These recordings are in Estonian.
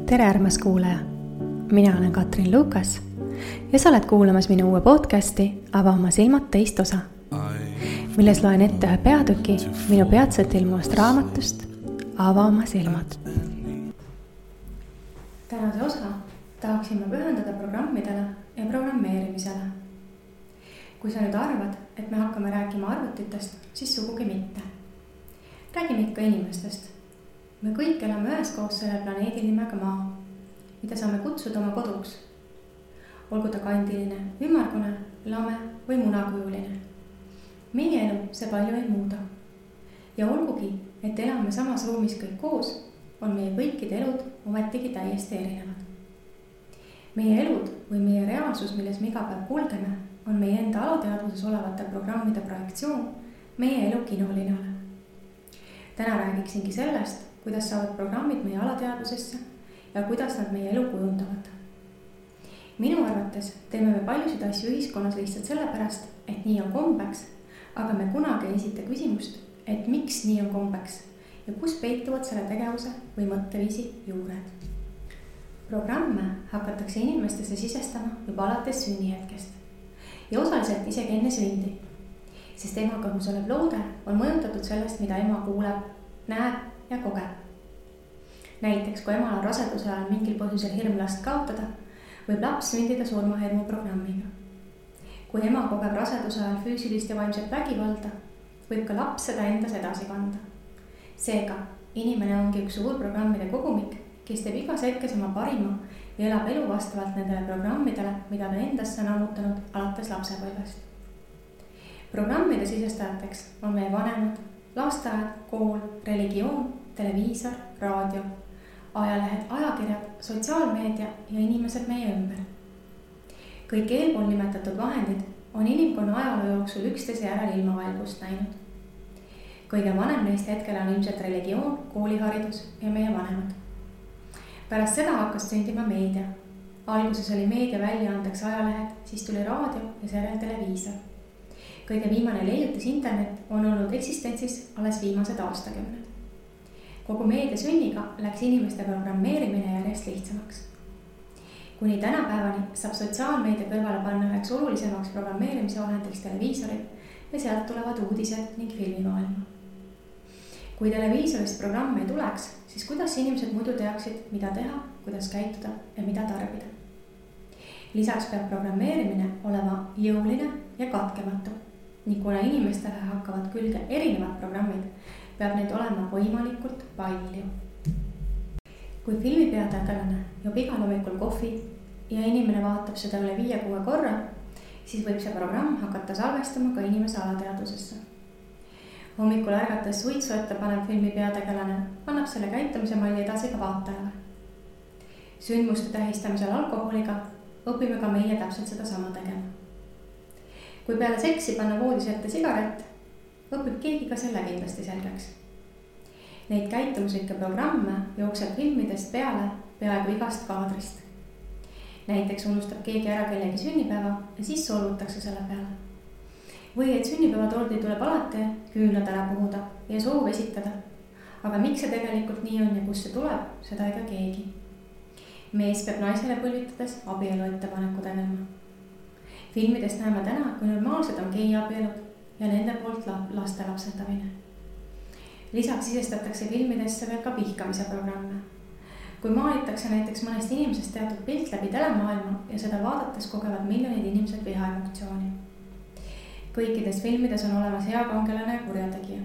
tere, armas kuulaja! Mina olen Katrin Lukas ja sa oled kuulamas minu uue podcasti Ava oma silmad teist osa, milles loen ette ühe peatüki minu peatselt ilmuvast raamatust Ava oma silmad. Tänase osa tahaksin ma pühendada programmidele ja programmeerimisele. Kui sa nüüd arvad, et me hakkame rääkima arvutitest, siis sugugi mitte. Räägime ikka inimestest. Me kõik elame üheskoos selle planeedi nimega Maa, mida saame kutsuda oma koduks. Olgu ta kandiline, ümmargune, lame või munakujuline. Meie elu see palju ei muuda. Ja olgugi, et elame samas ruumis kõik koos, on meie kõikide elud ometigi täiesti erinevad. Meie elud või meie reaalsus, milles me iga päev kulgeme, on meie enda alateadvuses olevate programmide projektsioon meie elu kinolinale. Täna räägiksingi sellest, kuidas saavad programmid meie alateadvusesse ja kuidas nad meie elu kujundavad. Minu arvates teeme me paljusid asju ühiskonnas lihtsalt sellepärast, et nii on kombeks, aga me kunagi ei esita küsimust, et miks nii on kombeks ja kus peituvad selle tegevuse või mõtteviisi juured. Programme hakatakse inimestesse sisestama juba alates sünnihetkest ja osaliselt isegi enne sündi, sest ema kõhus olev loode on mõjutatud sellest, mida ema kuuleb, näeb ja kogeb. Näiteks, kui emal on raseduse ajal mingil põhjusel hirm last kaotada, võib laps sündida surmahirmu programmiga. Kui ema kogeb raseduse ajal füüsilist ja vaimset vägivalda, võib ka laps seda endas edasi kanda. Seega, inimene ongi üks suur programmide kogumik, kes teeb igas hetkes oma parima ja elab elu vastavalt nendele programmidele, mida ta endasse on ammutanud alates lapsepõlvest. Programmide sisestajateks on meie vanemad, lasteaed, kool, religioon, televiisor, raadio, ajalehed, ajakirjad, sotsiaalmeedia ja inimesed meie ümber. Kõik eelpool nimetatud vahendid on inimkonna ajaloo jooksul üksteise järel ilmavalgust näinud. Kõige vanem neist hetkel on ilmselt religioon, kooliharidus ja meie vanemad. Pärast seda hakkas sündima meedia. Alguses oli meedia väljaandeks ajalehed, siis tuli raadio ja seejärel televiisor. Kõige viimane leiutis internet on olnud eksistentsis alles viimased aastakümned. Kogu meedia sünniga läks inimeste programmeerimine järjest lihtsamaks. Kuni tänapäevani saab sotsiaalmeedia kõrvale panna üheks olulisemaks programmeerimise vahendiks televiisorid ja sealt tulevad uudised ning filmimaailma. Kui televiisorist programm ei tuleks, siis kuidas inimesed muidu teaksid, mida teha, kuidas käituda ja mida tarbida. Lisaks peab programmeerimine olema jõuline ja katkematu. Nii kuna inimestele hakkavad külge erinevad programmid, peab neid olema võimalikult palju. Kui filmipeategelane joob igal hommikul kohvi ja inimene vaatab seda üle 5-6 korra, siis võib see programm hakata salvestama ka inimese alateadvusesse. Hommikul ärgates suitsu ette panev filmipeategelane annab selle käitumise malli edasi ka vaatajale. Sündmuste tähistamisel alkoholiga õpime ka meie täpselt seda sama tegema. Kui peale seksi panna voodis ette sigaret, õpib keegi ka selle kindlasti selgeks. Neid käitumuslikke programme jookseb filmidest peale peaaegu igast kaadrist. Näiteks unustab keegi ära kellegi sünnipäeva ja siis solvutakse selle peale. Või et sünnipäevatordi tuleb alati küünlad ära puhuda ja soov esitada. Aga miks see tegelikult nii on ja kus see tuleb, seda ega keegi. Mees peab naisele põlvitades abielu ettepaneku tegema. Filmidest näeme täna, kui normaalsed on geiabielud ja nende poolt laste lapsendamine. Lisaks sisestatakse filmidesse veel ka vihkamise programme. Kui maalitakse näiteks mõnest inimesest teatud pilt läbi telemaailma ja seda vaadates kogevad miljonid inimesed vihaemotsiooni. Kõikides filmides on olemas hea kangelane ja kurjategija.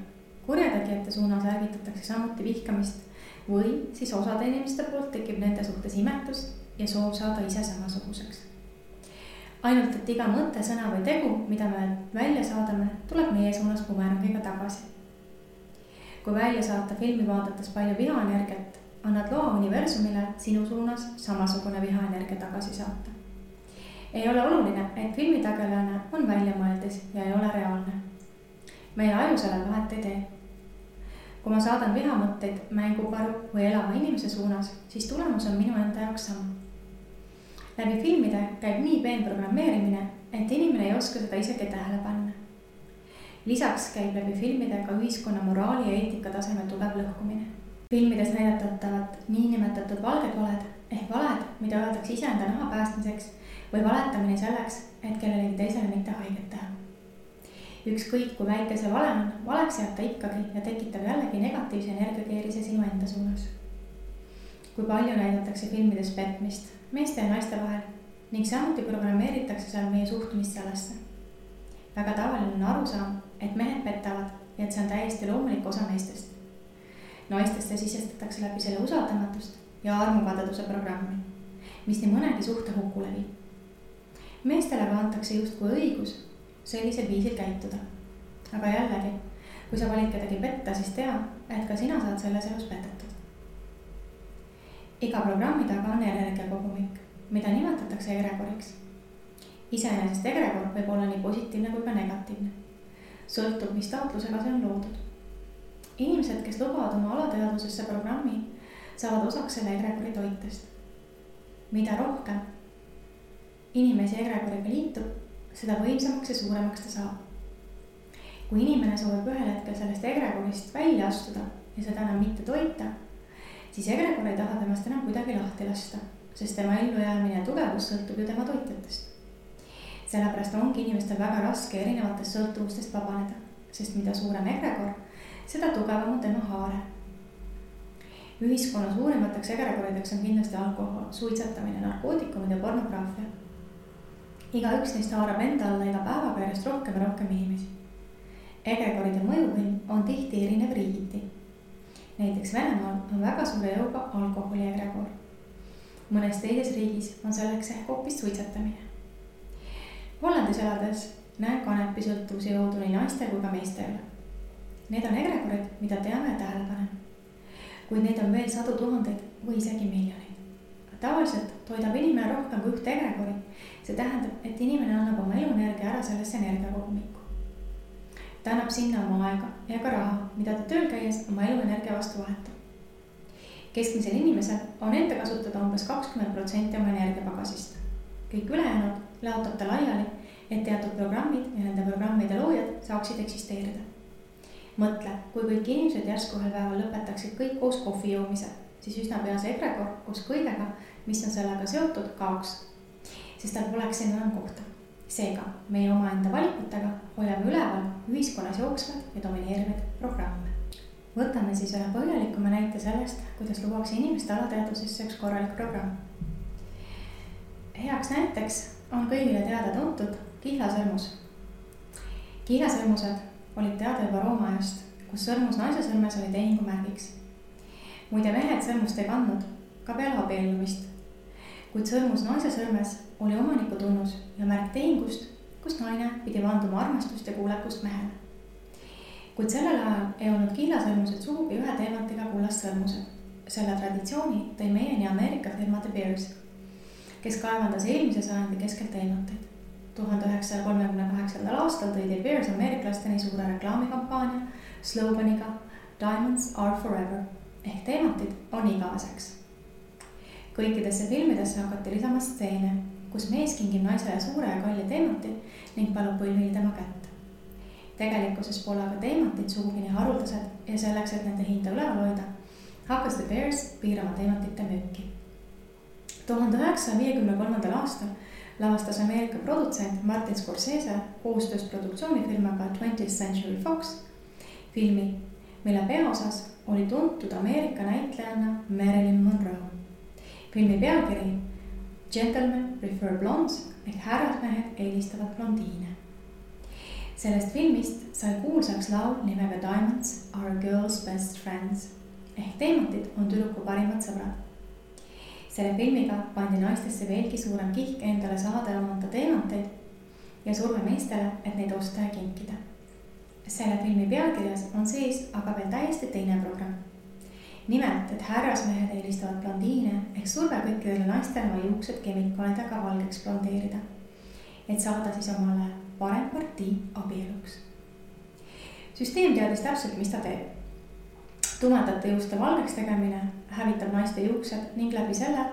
Kurjategijate suunas ärgitatakse samuti vihkamist või siis osade inimeste poolt tekib nende suhtes imetus ja soov saada ise samasuguseks. Ainult, et iga mõte, sõna või tegu, mida me välja saadame, tuleb meie suunas bumerangiga tagasi. Kui välja saata filmi vaadates palju vihaenergiat, annad loa universumile sinu suunas samasugune vihaenergia tagasi saata. Ei ole oluline, et filmitagelane on väljamõeldis ja ei ole reaalne. Meie aju selle vahet ei tee. Kui ma saadan vihamõtteid mängukaru või elava inimese suunas, siis tulemus on minu enda jaoks sama. Läbi filmide käib nii peen programmeerimine, et inimene ei oska seda isegi tähele panna. Lisaks käib läbi filmide ka ühiskonna moraali ja eetika tasemel tugev lõhkumine. filmides näidatavat niinimetatud valged valed ehk valed, mida öeldakse iseenda naha päästmiseks või valetamine selleks, et kellelegi teisele mitte haiget teha. Ükskõik kui väike see vale on, valeks jääb ta ikkagi ja tekitab jällegi negatiivse energiakeerise sinu enda suunas. Kui palju näidatakse filmides petmist meeste ja naiste vahel ning samuti programmeeritakse seal meie suhtumist sellesse. Väga tavaline on arusaam, et mehed petavad ja et see on täiesti loomulik osa meestest. Naistesse sisestatakse läbi selle usaldamatust ja armukadeduse programmi, mis nii mõnegi suhte hukule viib. Meestele aga antakse justkui õigus sellisel viisil käituda. Aga jällegi, kui sa valid kedagi petta, siis tea, et ka sina saad selles elus petetud. Iga programmi taga on energiakogumik, mida nimetatakse egregoriks. Iseenesest egregor võib olla nii positiivne kui ka negatiivne. Sõltub, mis taotlusega see on loodud. Inimesed, kes lubavad oma alateadvusesse programmi, saavad osaks selle egregori toitest. Mida rohkem inimesi egregoriga liitub, seda võimsamaks ja suuremaks ta saab. Kui inimene soovib ühel hetkel sellest egregorist välja astuda ja seda enam mitte toita, siis egregor ei taha temast enam kuidagi lahti lasta, sest tema ellujäämine ja tugevus sõltub ju tema toitjatest. Sellepärast ongi inimestel väga raske erinevatest sõltuvustest vabaneda, sest mida suurem egregor, seda tugevam on tema haare. Ühiskonna suurimateks egregorideks on kindlasti alkohol, suitsetamine, narkootikumid ja pornograafia. Igaüks neist haarab enda alla iga päevaga järjest rohkem ja rohkem inimesi. Egregoride mõjuvõim on tihti erinev riigiti. Näiteks Venemaal on väga suure jõuga alkoholi egregor. Mõnes teises riigis on selleks ehk hoopis suitsetamine. Hollandis elades näen kanepisõltuvuse jõudu nii naiste kui ka meestele. Need on egregorid, mida teame ja tähele paneme. Kuid neid on veel sadu tuhandeid või isegi miljoneid. Tavaliselt toidab inimene rohkem kui ühte egregori. See tähendab, et inimene annab oma eluenergia ära sellesse energiakogumikku. Ta annab sinna oma aega ja ka raha, mida ta tööl käies oma eluenergia vastu vahetab. Keskmisel inimesel on enda kasutada umbes 20% oma energiapagasist. Kõik ülejäänud laotab ta laiali, et teatud programmid ja nende programmide loojad saaksid eksisteerida. Mõtle, kui kõik inimesed järsku ühel päeval lõpetaksid kõik koos kohvi joomise, siis üsna pea see egregor koos kõigega, mis on sellega seotud, kaoks, sest tal poleks enam kohta. Seega, meie omaenda valikutega hoiame üleval ühiskonnas jooksvad ja domineerivaid programme. Võtame siis ühe põhjalikuma näite sellest, kuidas luuakse inimeste alateadvusesse üks korralik programm. Heaks näiteks on kõigile teada tuntud kihlasõrmus. Kihlasõrmused olid teada juba Rooma ajast, kus sõrmus naise sõrmes oli tehingumärgiks. Muide mehed sõrmust ei kandnud ka peale abiellumist, kuid sõrmus naise sõrmes oli omaniku tunnus ja märk tehingust, kus naine pidi vanduma armastust ja kuulekust mehele. Kuid sellel ajal ei olnud kihlasõrmused sugugi ühe teemantiga kullast sõrmused. Selle traditsiooni tõi meieni Ameerika firma De Beers, kes kaevandas eelmise sajandi keskelt teemanteid. 1938. aastal tõi De Beers ameeriklasteni suure reklaamikampaania sloganiga Diamonds are forever ehk teemantid on igaveseks. Kõikidesse filmidesse hakati lisama stseene, kus mees kingib naisele suure ja kalli teemanti ning palub põlvili tema kätt. Tegelikkuses pole aga teemantid sugugi nii haruldased ja selleks, et nende hinda üleval hoida, hakkas De Beers piirama teemantite müüki. 1953. aastal lavastas Ameerika produtsent Martin Scorsese koostöös produktsioonifirmaga 20th Century Fox filmi, mille peaosas oli tuntud Ameerika näitlejanna Marilyn Monroe. Filmi pealkiri Gentlemen prefer blondes ehk härrasmehed eelistavad blondiine. Sellest filmist sai kuulsaks laul nimega Diamonds are girls best friends ehk teemantid on tüdruku parimad sõbrad. Selle filmiga pandi naistesse veelgi suurem kihk endale saada ja omanda teemanteid ja surve meestele, et neid osta ja kinkida. Selle filmi pealkirjas on sees aga veel täiesti teine programm. Nimelt, et härrasmehed eelistavad blondiine ehk surve kõikidele naistele oma juuksed kemikaalidega valgeks blondeerida, et saada siis omale parem partii abieluks. Süsteem teadis täpselt, mis ta teeb. Tumedate juuste valgeks tegemine hävitab naiste juuksed ning läbi selle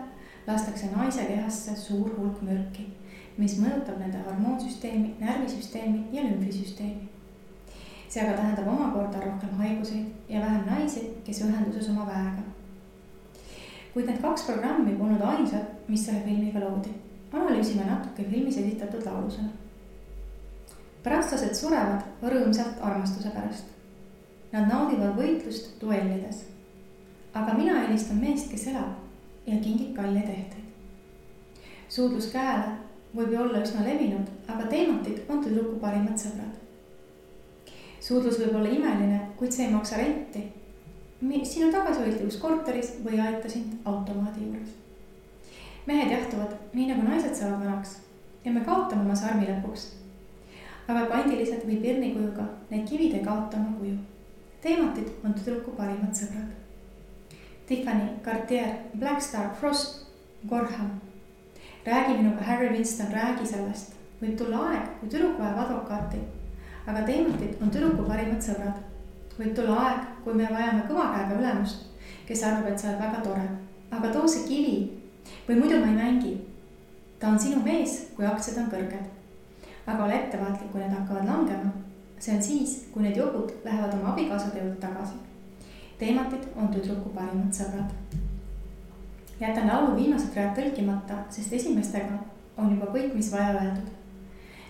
lastakse naise kehasse suur hulk mürki, mis mõjutab nende hormoonsüsteemi, närvisüsteemi ja lümfisüsteemi. see aga tähendab omakorda rohkem haiguseid ja vähem naisi, kes ühenduses oma väega. Kuid need 2 programmi polnud ainsad, mis selle filmiga loodi. Analüüsime natuke filmis esitatud laulusena. Prantslased surevad rõõmsalt armastuse pärast. Nad naudivad võitlust duellides. Aga mina eelistan meest, kes elab ja kingib kalleid ehteid. Suudlus käele võib ju olla üsna levinud, aga teematid on tüdruku parimad sõbrad. Suudlus võib olla imeline, kuid see ei maksa renti. Sinu tagasihoidlikus korteris või aita sind automaadi juures. Mehed jahtuvad nii nagu naised saavad vanaks ja me kaotame oma sarmi lõpuks. Aga pandiliselt või pirnikujuga need kivid ei kaota oma kuju. Teematid on tüdruku parimad sõbrad. Tiffany, Cartier, Black Star, Frost, Gorham. Räägi minuga, Harry Winston, räägi sellest. Võib tulla aeg, kui tüdruk vajab advokaati, aga teematid on tüdruku parimad sõbrad. Võib tulla aeg, kui me vajame kõva käega ülemust, kes arvab, et sa oled väga tore. Aga too see kivi või muidu ma ei mängi. Ta on sinu mees, kui aktsiad on kõrged. Aga ole ettevaatlik, kui need hakkavad langema. See on siis, kui need jogud lähevad oma abikaasade juurde tagasi. Teematid on tüdruku parimad sõbrad. Jätan laulu viimased read tõlkimata, sest esimestega on juba kõik, mis vaja öeldud.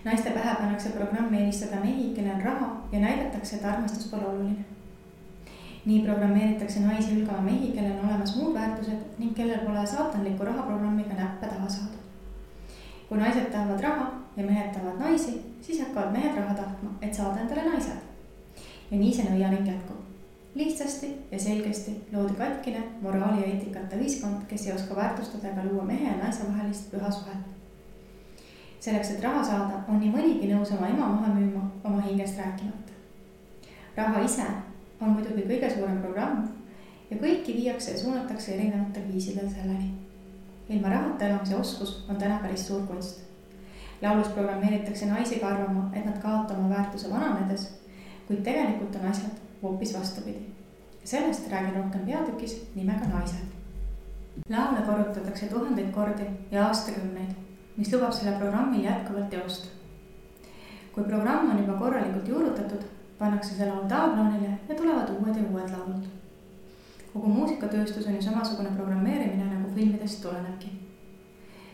Naiste pähe pannakse programmi eelistada mehi, kellel on raha ja näidatakse, et armastus pole oluline. Nii programmeeritakse naisi hülgama mehi, kellel on olemas muud väärtused ning kellel pole saatanliku rahaprogrammiga näppe taha saada. Kui naised tahavad raha ja mehed tahavad naisi, siis hakkavad mehed raha tahtma, et saada endale naised. Ja nii see nõiaring jätkub. Lihtsasti ja selgesti loodi katkine moraali ja eetikata ühiskond, kes ei oska väärtustada ega luua mehe ja naise vahelist püha suhet. Selleks, et raha saada, on nii mõnigi nõus oma ema maha müüma oma hingest rääkimata. Raha ise on muidugi kõige suurem programm ja kõiki viiakse ja suunatakse erinevatel viisidel selleni. Ilma rahata elamise oskus on täna päris suur kunst. Laulus programmeeritakse naisi ka arvama, et nad kaotama väärtuse vananedes, kuid tegelikult on asjad hoopis vastupidi. Sellest räägin rohkem peatükis nimega Naised. Laule korrutatakse 1000 kordi ja aastakümneid, mis lubab selle programmil jätkuvalt teost. Kui programm on juba korralikult juurutatud, pannakse see laul taabloonile ja tulevad uued ja uued laulud. Kogu muusikatööstus on ju samasugune programmeerimine, nagu filmidest tulenebki.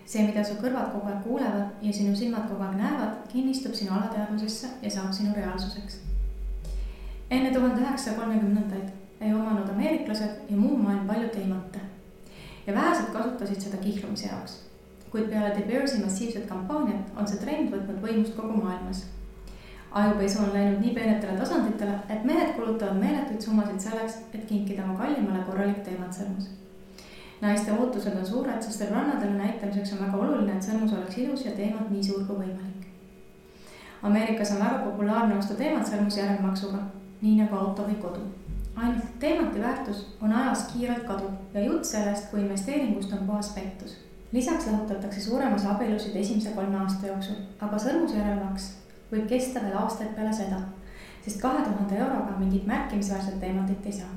See, mida su kõrvad kogu aeg kuulevad ja sinu silmad kogu aeg näevad, kinnistub sinu alateadvusesse ja saab sinu reaalsuseks. Enne 1930-ndaid ei omanud ameeriklased ja muu maailm palju teemante ja vähesed kasutasid seda kihlumise jaoks. Kuid peale De Beersi massiivset kampaaniat on see trend võtnud võimust kogu maailmas. Ajupesu on läinud nii peenetele tasanditele, et mehed kulutavad meeletuid summasid selleks, et kinkida oma kallimale korralik teematsõrmus. Naiste ootused on suured, sest rannadele näitamiseks on väga oluline, et sõrmus oleks ilus ja teemad nii suur kui võimalik. Ameerikas on väga populaarne osta teematsõrmus järelmaksuga, nii nagu auto või kodu. Ainult teemati väärtus on ajas kiirelt kaduv ja jutt sellest, kui investeeringust on puhas pettus. Lisaks lahutatakse suuremas abielusid esimese 3 aasta jooksul, aga sõrmuse järelmaks võib kesta veel aastaid peale seda, sest 2000 euroga mingit märkimisväärset teematit ei saa.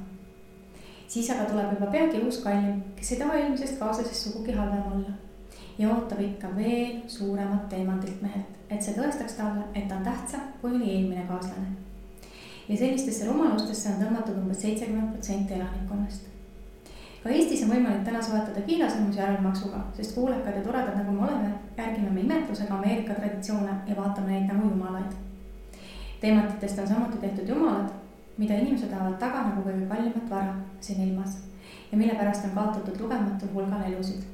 Siis aga tuleb juba peagi uus kallim, kes ei taha eelmisest kaaslasest sugugi halvem olla ja ootab ikka veel suuremat teemandilt mehelt, et see tõestaks talle, et ta on tähtsam kui oli eelmine kaaslane. Ja sellistesse rumalustesse on tõmmatud umbes 70% elanikkonnast. Ka Eestis on võimalik täna soetada kiilasõrmus järelmaksuga, sest kuulekad ja toredad nagu me oleme, järgime me imetlusega Ameerika traditsioone ja vaatame neid nagu jumalaid. Teematitest on samuti tehtud jumalad, mida inimesed tahavad taga nagu kõige kallimat vara siin ilmas ja mille pärast on kaotatud lugematul hulgal elusid.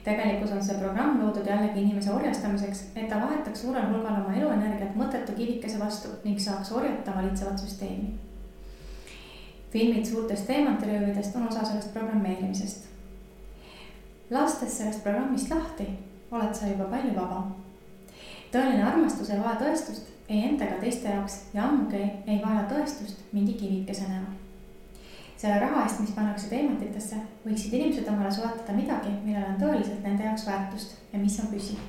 Tegelikult on see programm loodud jällegi inimese orjastamiseks, et ta vahetaks suurel hulgal oma eluenergiat mõttetu kivikese vastu ning saaks orjata valitsevat süsteemi. Filmid suurtest teemantiröövidest on osa sellest programmeerimisest. Lastes sellest programmist lahti, oled sa juba palju vaba. Tõeline armastus ei vaja tõestust, ei enda ega teiste jaoks ja ammugi ei vaja tõestust mingi kivikese näol. Selle raha eest, mis pannakse teematitesse, võiksid inimesed omale soetada midagi, millel on tõeliselt nende jaoks väärtust ja mis on püsiv.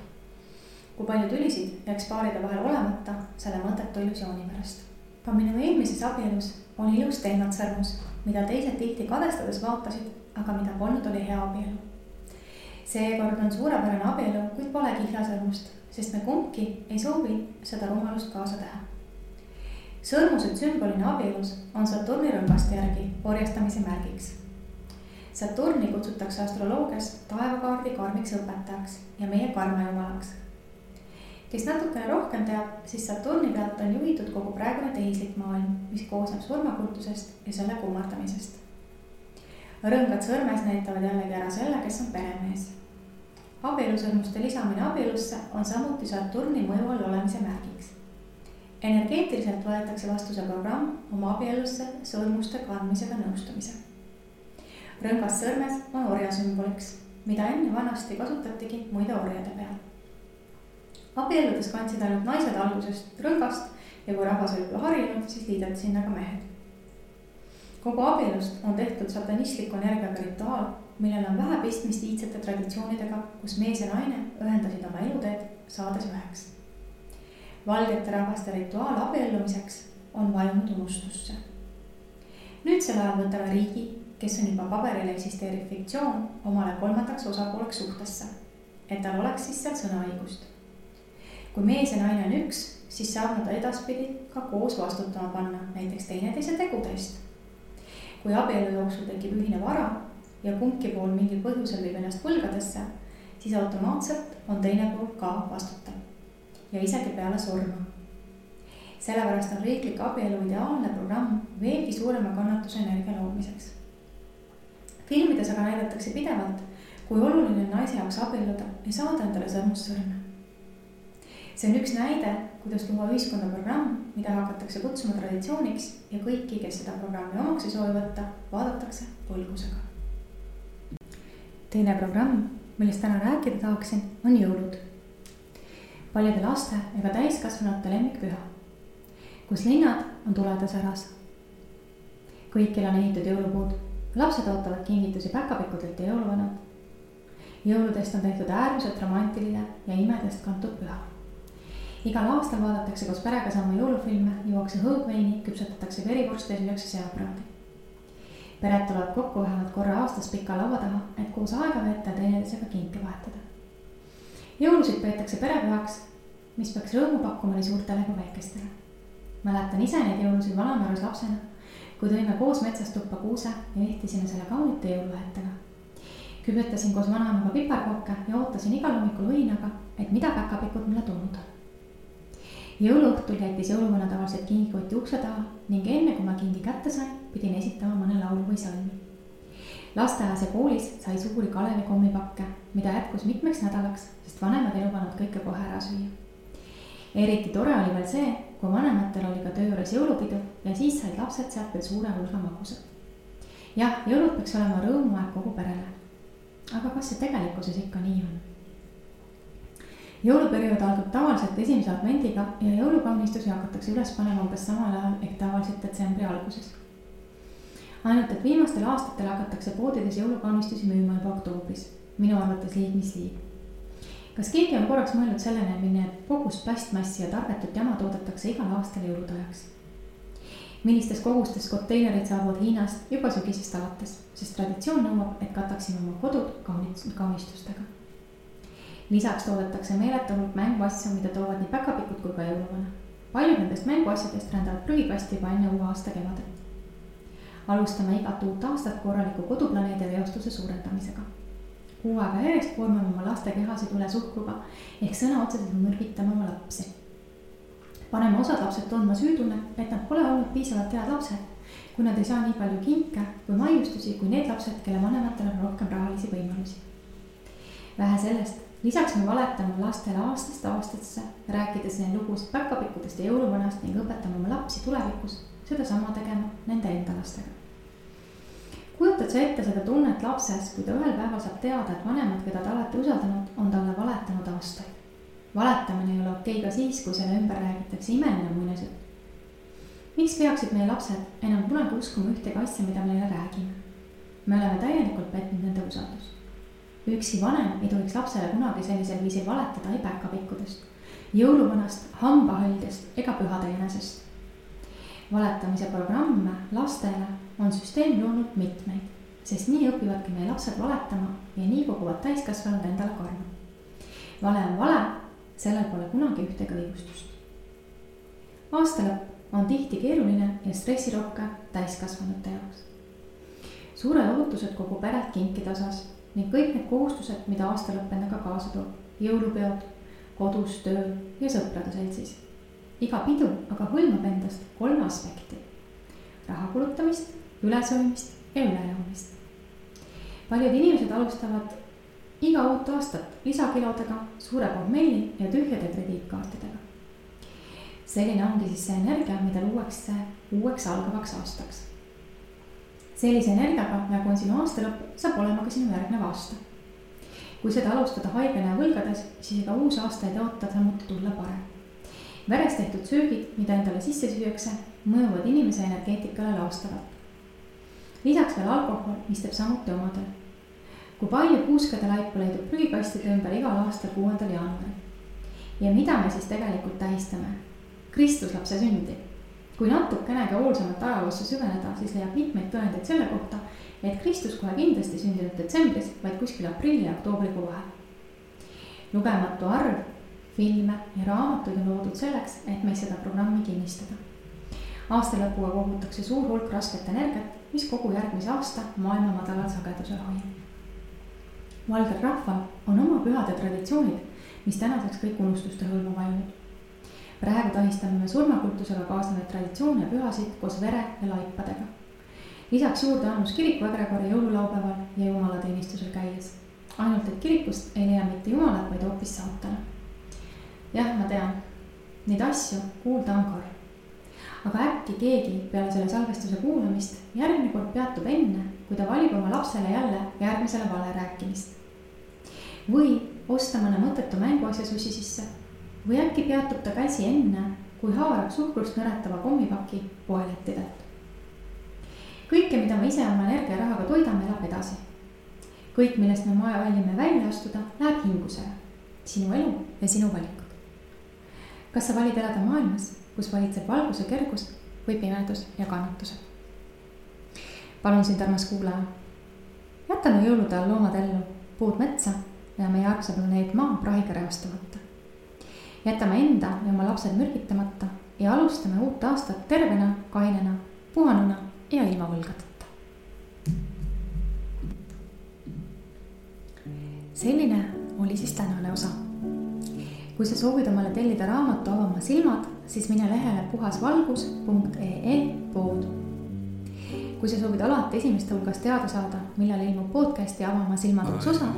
Kui palju tülisid jääks paaride vahel olemata selle mõttetu illusiooni pärast. Ka minu eelmises abielus oli ilus teematsõrmus, mida teised tihti kadestades vaatasid, aga mida polnud oli hea abielu. Seekord on suurepärane abielu, kuid pole kihlasõrmust, sest me kumbki ei soovi seda rumalust kaasa teha. sõrmused sümbolina abielus on Saturni rõngaste järgi orjastamise märgiks. Saturni kutsutakse astroloogias taevakaardi karmiks õpetajaks ja meie karmajumalaks. Kes natukene rohkem teab, siis Saturni pealt on juhitud kogu praegune tehislik maailm, mis koosneb surmakultusest ja selle kummardamisest. Rõngad sõrmes näitavad jällegi ära selle, kes on peremees. Abielusõrmuste lisamine abielusse on samuti Saturni mõju all olemise märgiks. Energeetiliselt võetakse vastu see programm oma abielusse sõrmuste kandmisega nõustumise. Rõngas sõrmes on orja sümboliks, mida enne vanasti kasutatigi muide orjade peal. Abieludes kandsid ainult naised algusest rõngast ja kui rahvas oli juba harjunud, siis liideti sinna ka mehed. Kogu abielust on tehtud satanistliku energiaga rituaal, millel on vähe pistmist iidsete traditsioonidega, kus mees ja naine ühendasid oma eluteed, saades üheks. Valgete rahvaste rituaal abiellumiseks on vajunud unustusse. Nüüdsel ajal võtame riigi, kes on juba paberil eksisteeriv fiktsioon, omale kolmandaks osapooleks suhtesse, et tal oleks siis seal sõnaõigust. Kui mees ja naine on üks, siis saab nad edaspidi ka koos vastutama panna, näiteks teineteise tegude eest. Kui abielu jooksul tekib ühine vara ja kumbki pool mingil põhjusel viib ennast võlgadesse, siis automaatselt on teine pool ka vastutav ja isegi peale surma. Sellepärast on riiklik abielu ideaalne programm veelgi suurema kannatuse energia loomiseks. Filmides aga näidatakse pidevalt, kui oluline naise jaoks abielluda ja saada endale sõrmust sõrme. See on üks näide, kuidas luua ühiskonda programm, mida hakatakse kutsuma traditsiooniks ja kõiki, kes seda programmi omaks ei soovi võtta, vaadatakse põlgusega. Teine programm, millest täna rääkida tahaksin, on jõulud. Paljude laste ega täiskasvanute lemmikpüha, kus linnad on tuledes äras. Kõikil on ehitud jõulupuud, lapsed ootavad kingitusi päkapikkudelt ja jõuluvanad. Jõuludest on tehtud äärmiselt romantiline ja imedest kantud püha. Igal aastal vaadatakse koos perega sama jõulufilme, juuakse hõõgveini, küpsetatakse verivorste ja süüakse seapraadi. Pered tulevad kokku vähemalt korra aastas pika laua taha, et koos aega veeta ja teineteisega kinke vahetada. Jõulusid peetakse perepühaks, mis peaks rõõmu pakkuma nii suurtele kui väikestele. Mäletan ise neid jõulusid Vanamäärus lapsena, kui tõime koos metsast tuppa kuuse ja ehtisime selle kaunite jõuluvahetega. Küpetasin koos vanaemaga piparkokke ja ootasin igal hommikul õinaga, et mida päkapikud mulle tulnud on. Jõuluõhtul jättis jõuluvana tavaliselt kingikoti ukse taha ning enne kui ma kingi kätte sain, pidin esitama mõne laulu või salmi. Lasteaias ja koolis sai suuri Kalevi kommipakke, mida jätkus mitmeks nädalaks, sest vanemad ei lubanud kõike kohe ära süüa. Eriti tore oli veel see, kui vanematel oli ka töö juures jõulupidu ja siis said lapsed sealt veel suure hulga magusad. Jah, jõulud peaks olema rõõmuaeg kogu perele. Aga kas see tegelikkuses ikka nii on? Jõuluperiood algab tavaliselt esimese advendiga ja jõulukaunistusi hakatakse üles panema umbes samal ajal ehk tavaliselt detsembri alguses. Ainult, et viimastel aastatel hakatakse poodides jõulukaunistusi müüma juba oktoobris. Minu arvates liig mis liig. Kas keegi on korraks mõelnud sellene, milline kogus plastmassi ja tarbetut jama toodetakse igal aastal jõulutajaks? Millistes kogustes konteinerid saabuvad Hiinast juba sügisest alates, sest traditsioon nõuab, et kataksime oma kodud kaunistustega. Lisaks toodetakse meeletu hulk mänguasju, mida toovad nii päkapikud kui ka jõuluvana. Paljud nendest mänguasjadest rändavad prügikasti juba enne uue aasta kevadet. Alustame igat uut aastat korraliku koduplaneedi veostuse suurendamisega. Kuu aega järjest koormame oma laste kehasid üle suhkruga ehk sõna otseselt mõrgitame oma lapsi. Paneme osad lapsed tundma süütunne, et nad pole olnud piisavalt head lapsed, kui nad ei saa nii palju kinke või maiustusi kui need lapsed, kelle vanematel on rohkem rahalisi võimalusi. Vähe sellest, lisaks me valetame lastele aastast aastasse, rääkides neil lugusid päkapikkudest ja jõuluvanast ning õpetame oma lapsi tulevikus seda sama tegema nende enda lastega. Kujutad sa ette seda tunnet lapses, kui ta ühel päeval saab teada, et vanemad, keda ta alati usaldanud, on talle valetanud aastaid. Valetamine ei ole okei ka siis, kui selle ümber räägitakse imeline muinasjutt. Miks peaksid meie lapsed enam kunagi uskuma ühtegi asja, mida me neile räägime? Me oleme täielikult petnud nende usaldus. Üksi vanem ei tohiks lapsele kunagi sellisel viisil valetada ei päkapikkudest, jõuluvanast, hambahõldest ega pühade jänesest. Valetamise programme lastele on süsteem loonud mitmeid, sest nii õpivadki meie lapsed valetama ja nii koguvad täiskasvanud endale karma. Vale on vale, sellel pole kunagi ühtegi õigustust. Aastalõpp on tihti keeruline ja stressirohke täiskasvanute jaoks. Suured ootused kogu peret kinkide osas ning kõik need kohustused, mida aastalõpp endaga kaasa toob. Jõulupeod, kodus, tööl ja sõprade seltsis. Iga pidu aga hõlmab endast 3 aspekti. Raha kulutamist, ülesöömist ja ülejoomist. Paljud inimesed alustavad iga uut aastat lisakilodega, suure pohmelli ja tühjade krediitkaartidega. Selline ongi siis see energia, mida luuakse uueks algavaks aastaks. Sellise energiaga, nagu on sinu aastalõpp, saab olema ka sinu järgnev aasta. Kui seda alustada haigena ja võlgades, siis ega uus aasta ei oota samuti tulla parem. Veres tehtud söögid, mida endale sisse süüakse, mõjuvad inimese energeetikale laastavalt. Lisaks veel alkohol, mis teeb samuti omadel. Kui palju puuskade laipa leidub prügikastide ümber igal aastal 6. jaanuaril. Ja mida me siis tegelikult tähistame? Kristuslapse sündi. Kui natukenegi hoolsamat ajaloosse süveneda, siis leiab mitmeid tõendeid selle kohta, et Kristus kohe kindlasti sündinud detsembris, vaid kuskil aprilli ja oktoobrikuu vahel. Lugematu arv, filme ja raamatuid on loodud selleks, et meid seda programmi kinnistada. Aastalõpuga kogutakse suur hulk rasket energiat, mis kogu järgmise aasta maailma madalal sagedusel hoiab. Valgel rahval on oma pühade traditsioonid, mis tänaseks kõik unustuste hõlma vajunud. Praegu tahistame me surmakultusega kaasnevaid traditsioone ja pühasid koos vere ja laipadega. Lisaks juurde annus kiriku egregori jõululaupäeval ja jumalateenistusel käies. Ainult, et kirikust ei leia mitte jumalat, vaid hoopis saatana. Jah, ma tean, neid asju kuulda on karm. Aga äkki keegi peale selle salvestuse kuulamist järgmine kord peatub enne, kui ta valib oma lapsele jälle järgmisele vale rääkimist. Või osta mõne mõttetu mänguasja susi sisse. Või äkki peatub ta käsi enne, kui haarab suhkrust nõretava kommipaki poelettidelt. Kõike, mida me ise oma energia ja rahaga toidame, elab edasi. Kõik, millest me valime välja astuda, läheb hingusele. Sinu elu ja sinu valikud. Kas sa valid elada maailmas, kus valitseb valguse kergus või pimedus ja kannatused? Palun sind, armas kuulaja. Jätame jõulude all loomad ellu, puud metsa ja meie armsa planeet maa prahiga reostamata. Jätame enda ja oma lapsed mürgitamata ja alustame uut aastat tervena, kainena, puhanuna ja ilma võlgadeta. Selline oli siis tänane osa. Kui sa soovid omale tellida raamatu Avama silmad, siis mine lehele puhasvalgus.ee pood. Kui sa soovid alati esimeste hulgas teada saada, millal ilmub podcasti Avama silmad uus osa,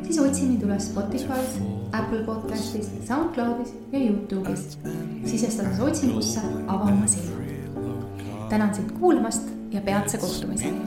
siis otsi mind üles Spotify's, Apple Podcastis, SoundCloudis ja YouTube'is, sisestades otsingusse Avama silmad. Tänan sind kuulamast ja peatse kohtumiseni.